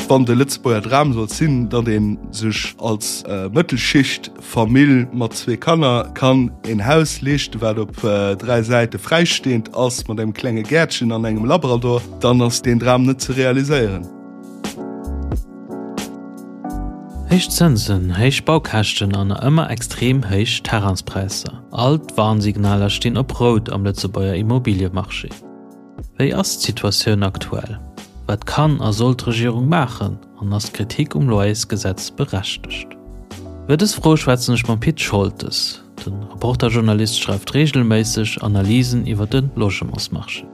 Wann de Lëtzebuerger Dram sollt sinn, datt ee sech als Mëttelschicht-Famill mat zwee Kanner kann een Haus leeschten, wat op 3 Säite fräistehend ass, mat engem klenge Gäertchen an engem Labrador, dann ass deen Dram net ze realiséieren. Héich Zënsen, héich Baukäschten an ëmmer extrem héich Terrainspräisser, all d'Warnsignaler stinn op Rout am Lëtzebuerger Immobiliemarché. Wéi ass d'Situatioun aktuell? Wat kann a soll d'Regierung maachen? An ass d'Kritik um Loyersgesetz berechtegt? Iwwer dës Fro schwätzen ech mam Pit Scholtes. De Reporter-Journalist schreift reegelméisseg Analysen iwwer de Logementsmarché.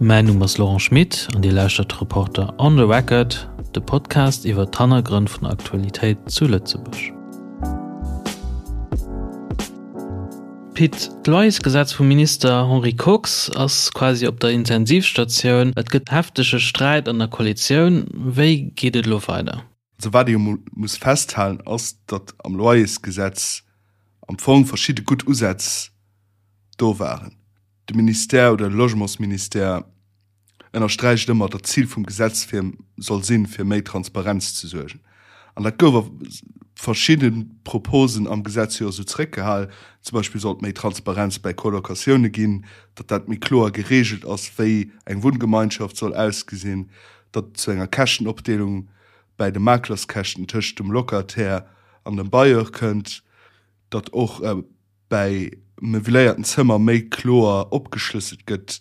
Mäin Numm ass Laurent Schmit an Dir lauschtert Reporter on the Record, de Podcast iwwer d'Hannergrënn vun der Aktualitéit zu Lëtzebuerg. Pit, d'Loyersgesetz vum Minister Henri Kox ass quasi op der Intensivstatioun. Et gëtt heftege Sträit an der Koalitioun. Wéi geet et elo weider? Also wat ee jo mol muss festhalen ass, datt am Loyersgesetz am Fong verschidde gutt Usätz do waren. De Ministère oder de Logementsministère ënnersträicht ëmmer, datt d'Zil vum Gesetz fir soll sinn, fir méi Transparenz ze suergen. An dat gouf a verschidde Proposen am Gesetz jo esou zeréckgehal. Zum Beispill sollt méi Transparenz bäi Colocatioune ginn, datt dat méi kloer gereegelt ass, wéi eng Wunngemeinschaft soll ausgesinn, datt et zu enger Käschtenopdeelung bäi de Maklerskäschten tëscht dem Locataire an dem Bailleur kënnt, datt och bäi meubiléierten Zëmmer méi kloer opgeschlësselt gëtt,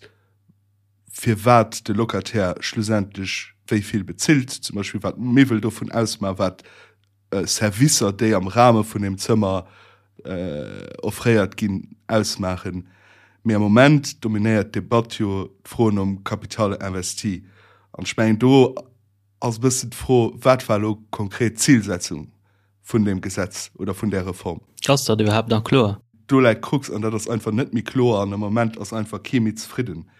firwat de Locataire schlussendlech wéi vill bezilt, zum Beispill wat d'Miwwel dovun ausmaachen, wat Servicer, déi am Rahme vun deem Zëmmer offréiert ginn, ausmaachen. Mee am Moment dominéiert d'Debatt jo d'Fro nom Capital investi. An ech mengen, do ass e bëssen d'Fro, Wat war elo konkret d'Zilsetzung vun deem Gesetz oder vun där Reform? Ass dat iwwerhaapt nach kloer? Do läit d'Krux an dat ass einfach net méi kloer an am Moment ass einfach kee méi zefridden.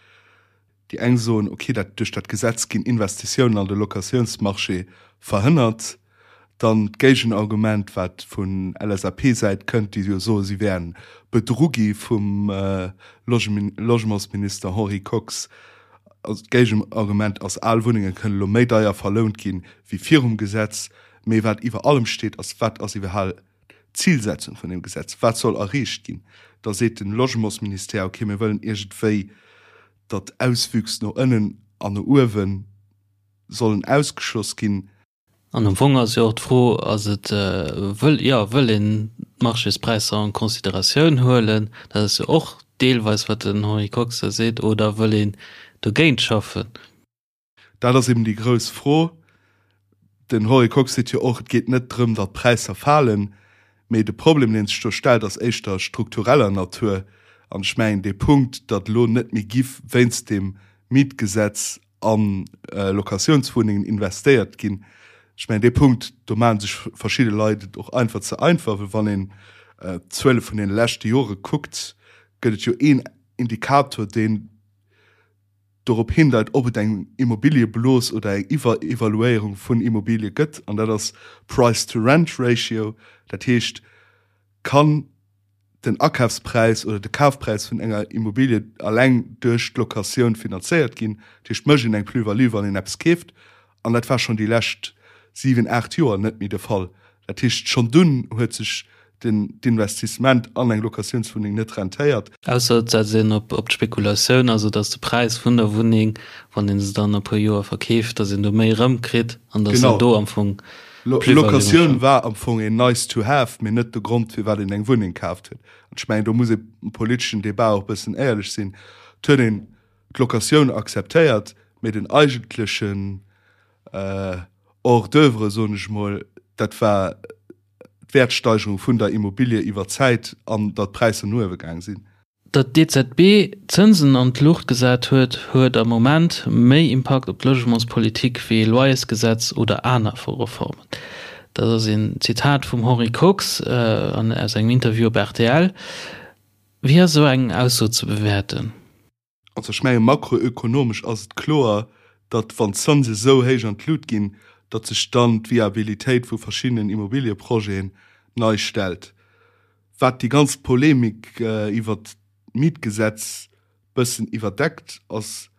Déi eng soen, okay, dat duerch dat Gesetz ginn Investitiounen an de Locatiounsmarché verhënnert. Dann d'Géigenargument, wat vun LSAP-Säit kënnt, déi jo soen, si wären bedru gi vum Logementsminister Henri Kox. Also d'Géigenargument ass, al Wunnenge kënnen elo méi deier verlount ginn, wéi virum Gesetz. Mee wat iwwer allem steet, ass, Wat ass iwwerhal d'Zilsetzung vun deem Gesetz? Wat soll erreecht ginn? Da seet de Logementsministère, okay, mir wëllen iergendwéi, datt Auswüchs no ënnen an no uewe sollen ausgeschloss ginn. An am Fong ass jo och d'Fro, ass et, wëll, jo, wëll een d'Marchéspräisser en considératioun huelen? Dat ass jo och deelweis, wat den Henri Kox da seet, oder wëll een dogéint schaffen? Dat ass eben déi grouss Fro. Den Henri Kox seet jo och, et geet net drëm, datt d'Präisser falen, mee de Problem, dee sech do stellt, ass éischter struktureller Natur. An ech mengen, dee Punkt, datt elo net méi giff wéinst dem Mietgesetz a Locatiounswunnengen investéiert ginn, ech mengen, dee Punkt, do maache sech verschidde Leit et och einfach ze einfach, well wann een d'Zuele vun deene leschte Jore kuckt, gëtt et jo een Indikator, deen dorop hindeit, ob et eng Immobiliëblos oder eng Iwwerevaluéierung vun Immobilie gëtt, an dat ass Price-to-Rent-Ratio. Dat heescht, kann den Akafspräis oder de Kafpräis vun enger Immobilie alleng duerch d'Locatioun finanzéiert ginn? Dat heescht, mécht een eng Plus-value, wann een eppes keeft? An dat war schonn déi lescht 7, 8 Joer net méi de Fall. Dat heescht, schonn dunn huet sech den d'Investissement an eng Locatiounswunneng net rentéiert. Ausser et setzt een op d'Spekulatioun, also datt de Präis vun der Wunneng, wann ee se dann no e puer Joer verkeeft, datt een do méi erëmkritt an datt een do am Fong Plus-value mécht. Locatioun war am Fong een nice to have, mee net de Grond, firwat een eng Wunneng kaaft huet. An ech mengen, do muss ee am politeschen Debat och e bëssen éierlech sinn. Et huet een d'Locatioun akzeptéiert, mee den eigentlechen Hors d'oeuvre, soen ech emol, dat war d'Wäertsteigerung vun der Immobilie iwwer d'Zäit an datt d'Präisser no uewe gaang sinn. Datt d'EZB d'Zënsen an d'Luucht gesat huet, huet am Moment méi Impakt op d'Logementspolitik wéi ee Loyersgesetz oder aner Reformen. Dat ass een Zitat vum Henri Kox aus engem Interview op rtl. Wéi ass esou eng Ausso ze bewäerten? Also ech menge makroökonomesch ass et kloer, datt wann d'Zënse esou héich an d'Lut ginn, datt sech dann d'Viabilitéit vu verschiddenen Immobilieprojeten nei stellt. Wat déi ganz Polemik iwwert d'Mietgesetz bëssen iwwerdeckt, ass.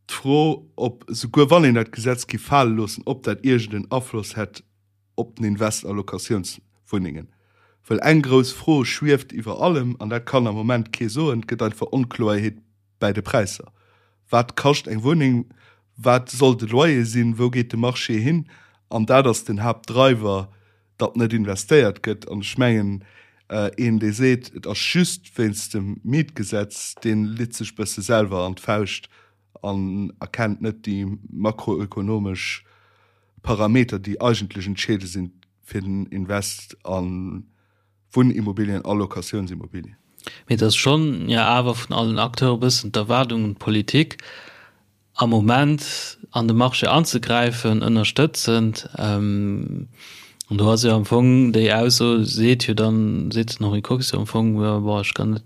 D'Fro, ob, souguer wann een dat Gesetz géif fale loossen, ob dat iergend en Afloss hätt op den Invest a Locatiounswunnengen. Well eng grouss Fro schwieft iwwer allem, an dat kann am Moment kee soen, Et gëtt einfach Onkloerheet bäi de Präisser. Wat kascht eng Wunneng? Wat soll de Loyer sinn? Wou geet de Marché hin? An dat ass den Haaptdriver, datt net investéiert gëtt. An ech mengen, een, dee seet, et ass just wéinst dem Mietgesetz, dee litt sech e bësse selwer an d'Fauscht an erkennt net déi makroökonomesch Parameter, déi eigentlech entscheedend sinn fir den Invest a Wunnimmobilien a Locatiounsimmobilien. Mee et ass schonn jo awer vun allen Acteure e bëssen d'Erwaardung un d'Politik, am Moment an de Marché anzegräifen, ënnerstëtzend. An do ass jo am Fong déi Ausso, seet jo dann, seet den Henri Kox jo am Fong, jo bon, ech kann net,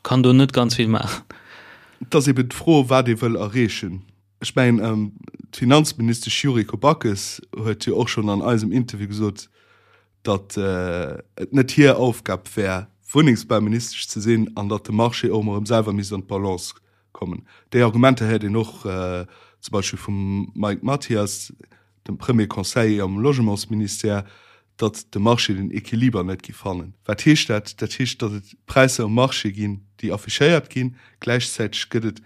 kann do net ganz vill maachen. Et ass eben d'Fro, wat ee wëll erreechen. Ech mengen, d'Finanzministesch Yuriko Backes huet jo och schonn an eisem Interview gesot, datt et net hir Aufgab wär, Wunnengsbauministesch ze sinn an datt de Marché och emol erëm selwer misst an d'Balance kommen. Déi Argumenter héiert een och zum Beispill vum Mike Mathias, dem Premier Conseiller am Logementsministère, datt de Marché den Equiliber net géif fannen. Wat heescht dat? Dat heescht, datt et Präisser um Marché ginn, déi affichéiert ginn. Gläichzäiteg gëtt et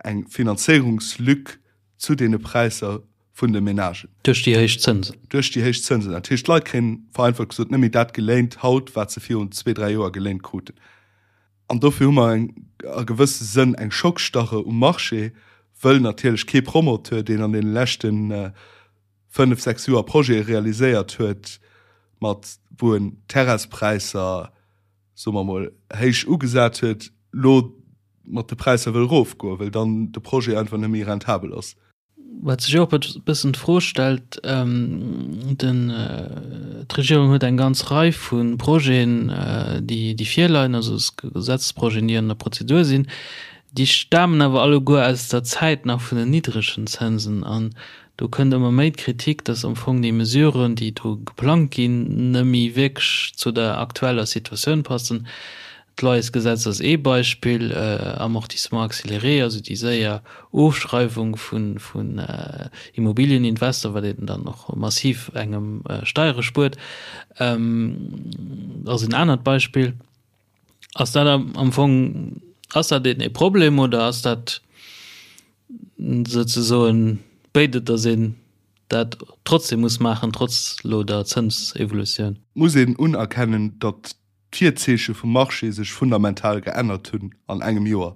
eng Finanzéierungslück zu deene Präisser vun de Menagen. Duerch déi héich Zënsen. Duerch déi héich Zënsen. Dat heescht, d'Leit kréien, vereinfacht gesot, net méi dat geléint haut, wat se virun zwee, dräi Joer geléint kruten. An dofir hu mer eng, a gewësse Sënn eng Schockstarre um Marché, wëll natierlech kee Promoteur, deen an deene leschte fënnef, sechs Joer Projete realiséiert huet, mat wou en d'Terrainspräisser, soe mer emol, héich ugesat huet, elo mat de Präisser wëll erofgoen, well dann de Projet einfach net méi rentabel ass. Wat sech och e bëssen d'Fro stellt, den, d'Regierung huet eng ganz Rei vu Projeten, déi, déi virleien, also Gesetzesprojeten, déi an der Prozedur sinn, déi stamen awer alleguer aus der Zäit nach vun den niddregen Zënsen. An do kënnt ëmmer méi d'Kritik, datt am Fong déi Mesuren, déi do geplangt ginn, net méi wierklech zu der aktueller Situatioun passen. D'Loyersgesetz ass ee Beispill, Amortissement accéléré, also déi séier Ofschreiwung vun Immobilieninvestor, wat een dann och massiv engem Steiere spuert, ass en anert Beispill. Ass dat am Fong, ass dat een ee Problem oder ass dat souzesoen béid, datt een dat trotzdem muss maachen, trotz elo der Zënsevolutioun? Muss een unerkennen, datt d'Virzeeche vum Marché sech fundamental geännert hunn an engem Joer.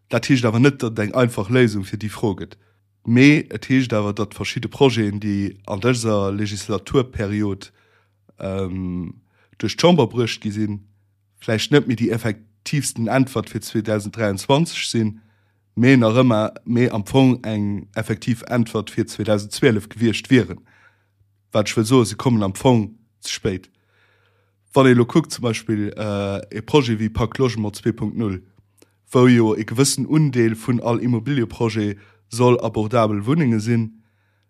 Dat heescht awer net, datt et eng einfach Léisung fir déi Fro gëtt. Mee et heescht awer, datt verschidde Projeten, déi an dëser Legislaturperiod duerch d'Chamber bruecht gi sinn, vläicht net méi déi effektiivsten Äntwert fir 2023 sinn, mee nach ëmmer, mee am Fong eng effektiv Äntwert fir 2012 gewiescht wieren. Wat ech wëll soen, se kommen am Fong ze spéit. Wann ee elo kuckt, zum Beispill e Projet wéi Pacte Logement 2.0, wou jo e gewëssen Undeel vun all Immobilieprojet soll abordabel Wunnenge sinn,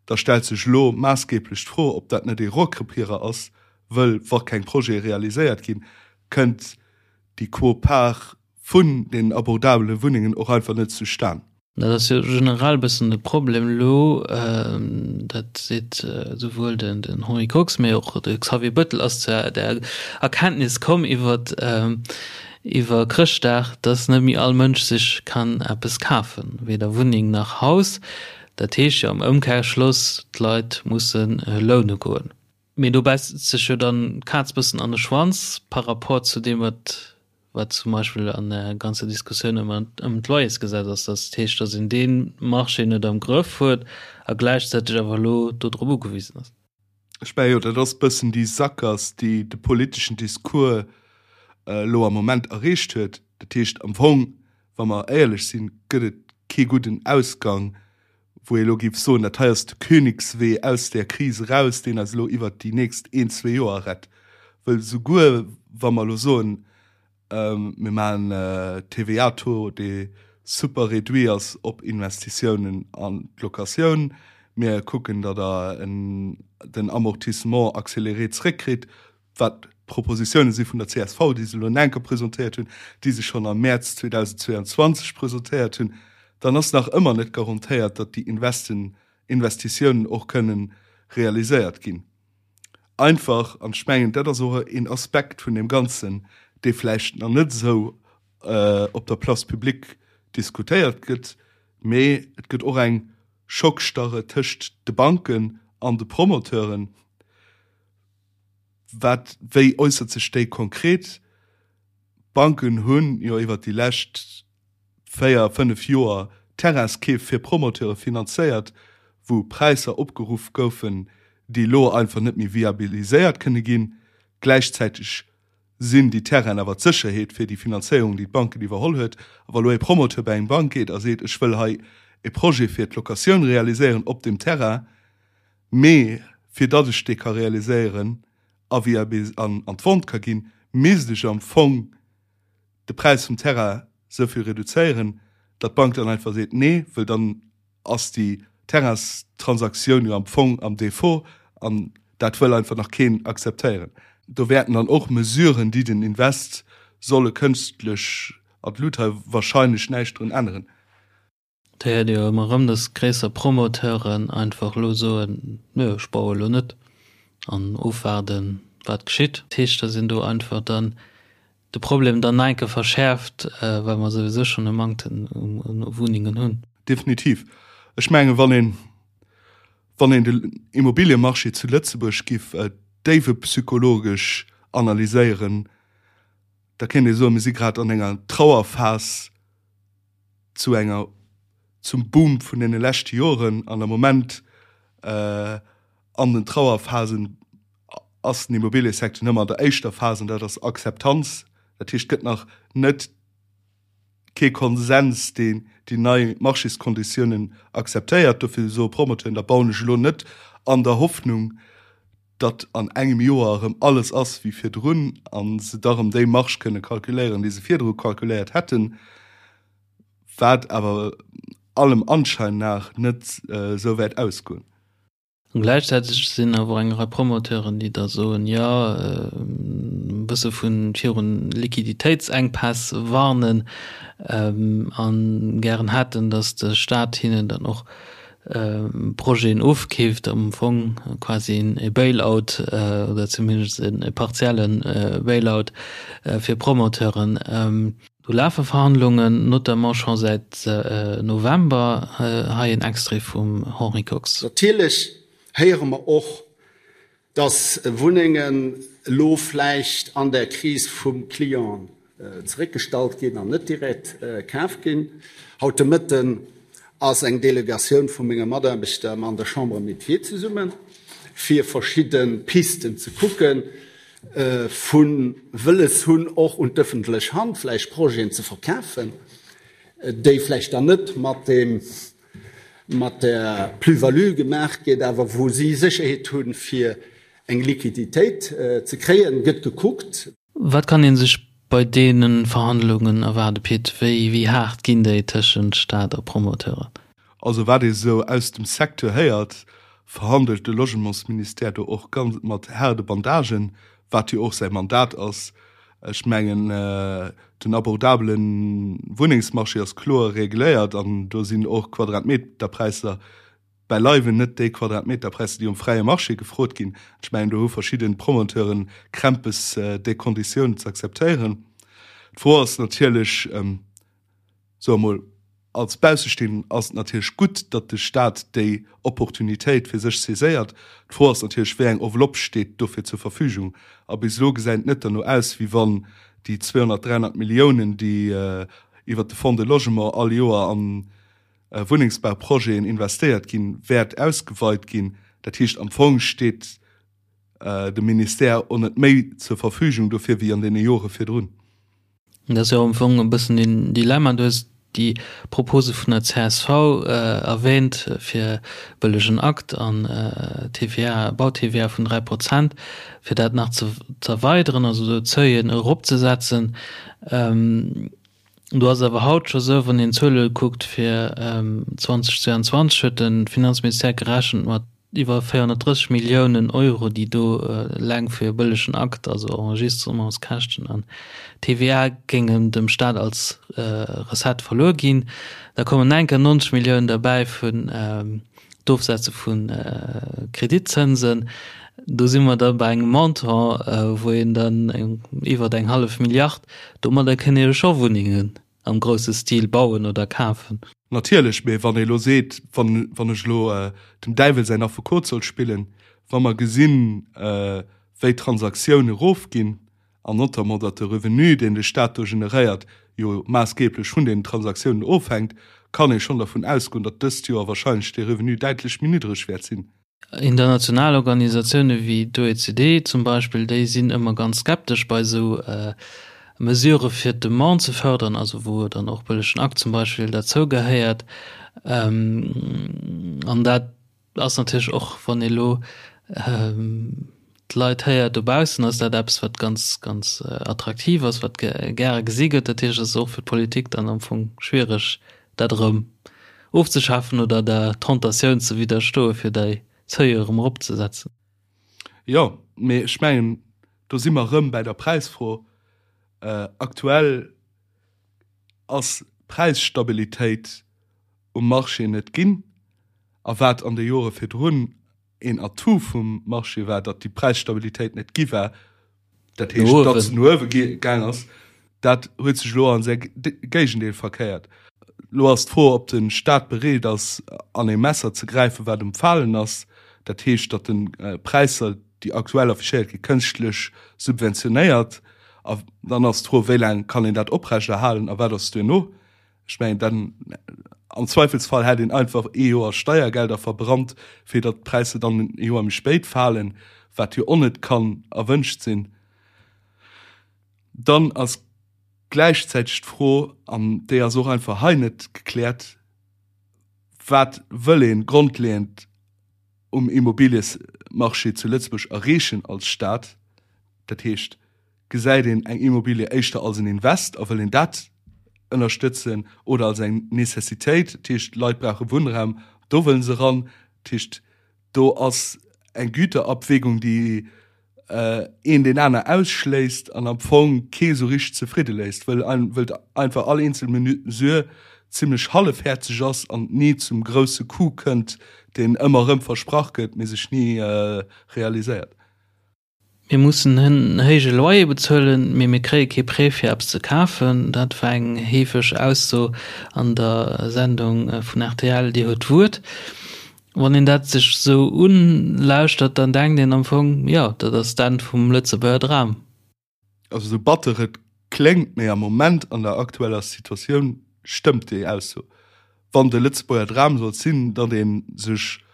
da stellt sech elo maassgeblech d'Fro, ob dat net ee Rohrkrepierer ass, wëll wa keng Projete realiséiert ginn, kënnt déi Quot-part vun den abordabele Wunnengen och einfach net zustan. Dat ass jo generell e bëssen de Problem elo, dat seet esouwuel den Henri Kox, mee och de Xavier Bettel ass zu der Erkenntnis komm iwwer iwwer Chrëschtdag, datt net méi all Mënsch sech kann eppes kafen, weder Wunneng nach Haus. Dat heescht jo am Ëmkehrschloss, d'Leit musse loune goen. Mee do bäisst sech jo dann d'Kaz bëssen an de Schwanz par rapport zu deem, wat wat zum Beispill an der ganzer Diskussioun ëm ëm d'Loyersgesetz ass, dat heescht, datt een dee Marché net am Grëff huet a gläichzäiteg awer elo do drop ugewisen ass. Ech mengen jo, dat ass e bëssen déi Sakgass, déi de politeschen Discours elo am Moment erreecht huet. Dat heescht am Fong, wa mer éierlech sinn, gëtt et kee gudden Ausgang, wou ee elo géif soen, dat hei ass de Königswee aus där Kris eraus, deen eis elo iwwert déi nächst een, zwee Joer rett. Wëll souguer wa mer elo soen, mir maachen TVA-Taux, dee super réduit ass op Investitiounen an d'Locatioun, mir kucken, datt Der den Amortissement accéléré zréckkritt, wat Propositioune si vun der csv, déi se elo en enker presentéiert hunn, déi se schonn am Mäerz 2022 presentéiert hunn, Dann ass nach ëmmer net garantéiert, datt déi Investen, Investitiounen och kënnen realiséiert ginn. Einfach, an ech mengen, dat ass och een Aspekt vun deem Ganzen, dee vläicht nach net esou op der Place publique diskutéiert gëtt, mee et gëtt och eng Schockstarre tëscht de Banken an de Promoteuren. Wat, wéi äussert sech déi konkret? D'Banken hunn jo iwwert déi lescht 4, 5 Joer Terrainskeef fir Promoteure finanzéiert, wou Präisser opgeruff goufen, déi elo einfach net méi viabiliséiert kënne ginn. Gläichzäiteg sinn déi Terrainen awer d'Sécherheet fir déi Finanzéierung, déi d'Banken iwwerholl huet. A wa lo e Promoteur bei eng Bank geet a seet, ech wëll hei e Projet fir d'Locatioun realiséieren op deem Terrain, mee fir datt ech dee ka realiséieren a an d'Vente ka ginn, misst ech am Fong de Präis vum Terrain esou vill reduzéieren, datt d'Bank dann einfach seet, nee, wëll dann ass déi Terrainstransaktioun jo am Fong am Défaut an dat wëll einfach nach keen akzeptéieren. Do wäerten dann och Mesuren, déi den Invest solle kënstlech an d'Lut hei, wahrscheinlech näischt drun änneren. Et héiert ee jo ëmmer erëm, datt gréisser Promoteuren einfach elo soen, Nö, ech baue elo net an ofwaarden, wat geschitt. Dat heescht, datt een do einfach dann de Problem dann nach eng Kéier verschäerft, well mer souwisou schonn e Manktem u Wunnengen hunn. Definitiv. Ech mengen, wann een, wann een den Immobiliemarché zu Lëtzebuerg giff déiwepsychologesch analyséieren, da kéint ee soen, mir si grad an enger Trauerphas zu enger, zum Boom vun deene leschte Joren an am Moment an den Trauerphasen ass den Immobiliesecteur nëmme an der éischter Phas an dat ass Akzeptanz. Dat heescht, et gëtt nach net kee Konsens, deen déi nei Marchéskonditiounen akzeptéiert. Dofir soe Promoteuren, da bauen ech elo net an der Hoffnung, datt an engem Joer erëm alles ass wéi virdrun a se da erëm déi Marge kënne kalkuléieren, déi se virdru kalkuléiert hätten, wat awer allem Anschein nach net esou wäert ausgoen. An gläichzäiteg sinn awer och eng Rei Promoteuren, déi da soen, jo, e bësse vu virun Liquiditéitsenkpäss warnen a gären hätten, datt de Staat hinnen dann och Projeten ofkeeft, am Fong quasi e Bailout oder zumindest e partielle Bailout fir Promoteuren. Do lafe Verhandlungen, notamment scho säit November. Hei en Extrait vum Henri Kox. Natierlech héiere mer och, dass Wunnengen elo vläicht an der Kris vum Client zeréckgestallt ginn an net direkt kaf ginn. Haut de Mëtten ass eng Delegatioun vu menge Mataarbechter an der Chambre Métiers zesummen, fir verschidde Pisten ze kucken, vu wëlles hunn, och un d'ëffentlech Hand vläicht Projeten ze verkafen, déi vläicht dann net mat deem, mat der Plus-value gemaach gétt, awer wou si Sécherheet hunn, fir eng Liquiditéit ze kréien, gëtt gekuckt. Wat kann ee sech bei deene Verhandlungen erwaarden, Pit? Wéi, wéi haart ginn déi tëschent Staat a Promoteuren? Also wat ee sou aus dem Secteur héiert, verhandelt de Logementsministère do och ganz mat haarde Bandagen, wat jo och säi Mandat ass. Ech mengen, den abordabele Wunnengsmarché ass kloer regléiert an do sinn och Quadratmeterpräisser beileiwen net déi Quadratmeterpräisser, déi um fräie Marché gefrot ginn. Ech mengen, do hu verschidde Promoteuren Krämpes, déi Konditiounen ze akzeptéieren. D'Fro ass natierlech, Soe mol, als Baussestehenden ass et natierlech gutt, datt de Staat déi Opportunitéit fir sech saiséiert. D'Fro ass natierlech, wéi eng Enveloppe steet dofir zur Verfügung? A bis elo gesäit et net derno aus, wéi wann déi 200, 300 Milliounen, déi iwwert de Fonds de Logement all Joer an Wunnengsbauprojeten investéiert ginn, wäert ausgeweit ginn. Dat heescht, am Fong steet dem Ministère och net méi zur Verfügung dofir wéi an deene Jore virdrun. Dat ass jo am Fong e bëssen den Dilemma. Du hues déi Propose vun der csv erwähnt fir bëllegen Akt an TVA, Bau-TVA vun 3 Prozent, fir dat nach ze z'erweideren, also do d'Seuillen eropzesetzen. Do ass et awer haut scho sou, wann een d'Zuele kuckt fir 2022 huet de Finanzministère gerechent mat. Iwwer 430 Milliounen Euro, déi do eleng fir e bëllegen Akt, also Enregistrementskäschten an TVA, géingen dem Staat als Recette verluer ginn. Da kommen nach eng Kéier 90 Milliounen derbäi vun d'Ofsetze vu Kreditzënsen. Do si mer da bei engem Montant, wou een dann iwwer eng hallef Milliard, domadder kënnt ee jo scho Wunnengen am grousse Stil bauen oder kafen. Natierlech, mee wann ee elo seet, wann, wann ech elo dem Däiwel säin Affekot soll spillen, wa mer gesinn, wéi d'Transaktiounen erofginn an notamment datt de Revenu, deen de Stat do generéiert, jo maassgeeblech vun deenen Transaktiounen ofhänkt, kann ee schonn dervun ausgoen, datt dëst Joer wahrscheinlech dee Revenu däitlech méi niddreg wäert sinn. International Organisatioune wéi d'OECD zum Beispill, déi sinn ëmmer ganz skeptesch bei esou Mesurë fir d'Demande ze fërderen, also wou dann och bëllegen Akt zum Beispill derzou gehéiert. An dat ass natierlech och, wann ee lo d'Leit héiert dobaussen, ass dat eppes, wat ganz, ganz attraktiv ass, wat gäre gesi gëtt. Dat heescht, et ass och fir d'Politik dann am Fong schwiereg, dat erëm ofzeschafen oder der Tentatioun ze widderstoen, fir déi Seuil erëm eropzesetzen. Jo, mee ech mengen, do si mer erëm bäi der Präisfro. Aktuell ass d'Präisstabilitéit um Marché net ginn. A wat an de Jore virdrun een Atout vum Marché war, datt déi Präisstabilitéit net gi war, dat heescht, datt se no uewe gaang ass, dat huet sech elo an säi Géigendeel verkéiert. Elo ass d'Fro, ob de Staat bereet ass, an ee Messer ze gräifen, wat um Falen ass, dat heescht, datt en Präisser, déi aktuell affichéiert ginn, kënschtlech subventionéiert. A dann ass d'Fro, wéi laang kann een dat oprechterhalen a wat ass duerno? Ech mengen, dann am Zweifelsfall hätt een einfach ee Joer Steiergelder verbrannt, fir datt d'Präisser dann e Joer méi spéit falen, wat jo och net kann erwënscht sinn. Dann ass gläichzäiteg d'Fro, an déi ass och einfach hei net gekläert, Wat wëll ee grondleeënd um Immobiliesmarché zu Lëtzebuerg erreechen als Staat? Dat heescht, Gesäit een eng Immobilie éischter als en Invest a wëll een dat ënnerstëtzen oder als eng Necessitéit, dat heescht d'Leit brauche Wunnraum, do wëllen se eran. Dat heescht do ass eng Güterabwägung, déi een deen aner ausschléisst an am Fong kee sou richteg zefridde léisst, wëll wëll einfach all eenzel Mesure zimlech hallefhäerzeg ass an ni zum grousse Coup kënnt, deen ëmmer erëm versprach gëtt, mee sech ni realiséiert. Mir mussen en héije Loyer bezuelen, mee mir kréie kee Prêt fir eppes ze kafen. Dat war eng heefeg Ausso an der Sendung vun rtl Dir huet d'Wuert. Wann een dat sech esou ulauschtert, dann denkt een am Fong, jo, dat ass d'Enn vum Lëtzebuerger Dram. Also sou batter et kléngt, mee am Moment an der aktueller Situatioun stëmmt déi Ausso. Wann de Lëtzebuerger Dram sollt sinn, datt ee sech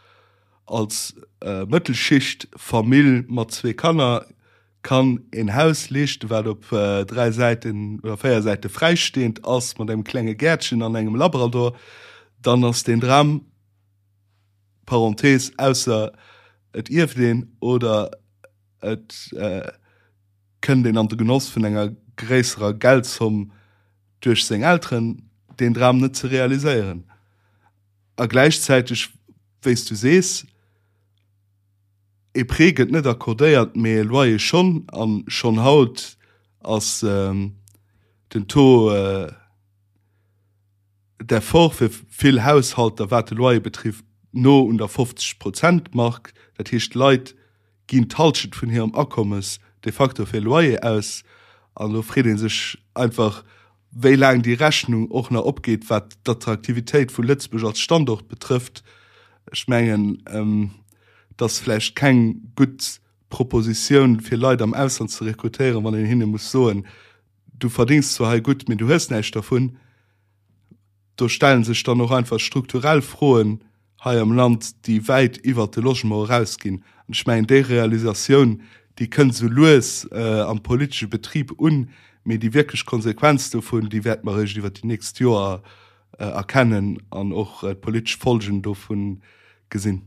als Mëttelschicht-Famill mat zwee Kanner kann een Haus leeschten, wat op 3 Säiten oder 4 Säite fräistehend ass, mat engem klenge Gäertchen an engem Labrador, dann ass deen Dram, Parenthese, ausser et ierft een oder et kënnt een an de Genoss vun enger gréisserer Geldzomm duerch seng Elteren, deen Dram net ze realiséieren. A gläichzäiteg, wéi s du sees, e Prêt gëtt net accordéiert, mee e Loyer schonn. A schonn haut ass den Taux d'effort fir vill Haushalter, wat de Loyer betrifft, no un der 50 Prozent Mark. Dat heescht, d'Leit ginn d'Halschent vun hirem Akommes de facto fir Loyer aus. An do freet ee sech einfach, wéi laang déi Rechnung och nach opgeet, wat d'Attraktivitéit vu Lëtzebuerg als Standort betrëfft. Ech mengen, et ass vläicht keng gutt Propositioun, fir Leit am Ausland ze rekrutéieren, wann een hinne muss soen, Du verdéngs zwar hei gutt, mee du hues näischt dervun. Do stelle sech dann och einfach strukturell Froen hei am Land, déi wäit iwwert de Logement erausginn. An ech mengen, déi Realisatioun, déi kënnt esou lues am politesche Betrib un, mee déi wierklech Konsequenz dovun, déi wäerte mer eréischt iwwert déi nächst Joer erkennen an och d'politesch Folgen dovun gesinn.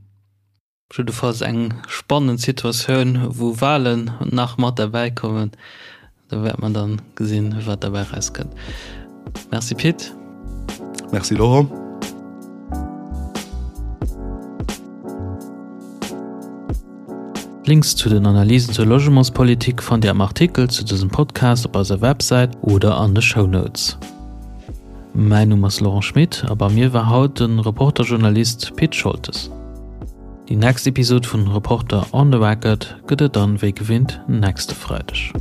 Jiddefalls eng spannend Situatioun, wou Walen nach mat derbäi kommen. Do wäert mer dann gesinn, wat derbäi erauskënnt. Merci Pit. Merci Laurent. D'Links zu den Analysen zur Logementspolitik fannt Dir am Artikel zu dësem Podcast op eiser Websäit oder an de Shownotes. Mäin Numm ass Laurent Schmit a bei mir war haut de Reporter-Journalist Pit Scholtes. Déi nächst Episod vun Reporter on the Record gëtt et dann wéi gewinnt nächste Freideg.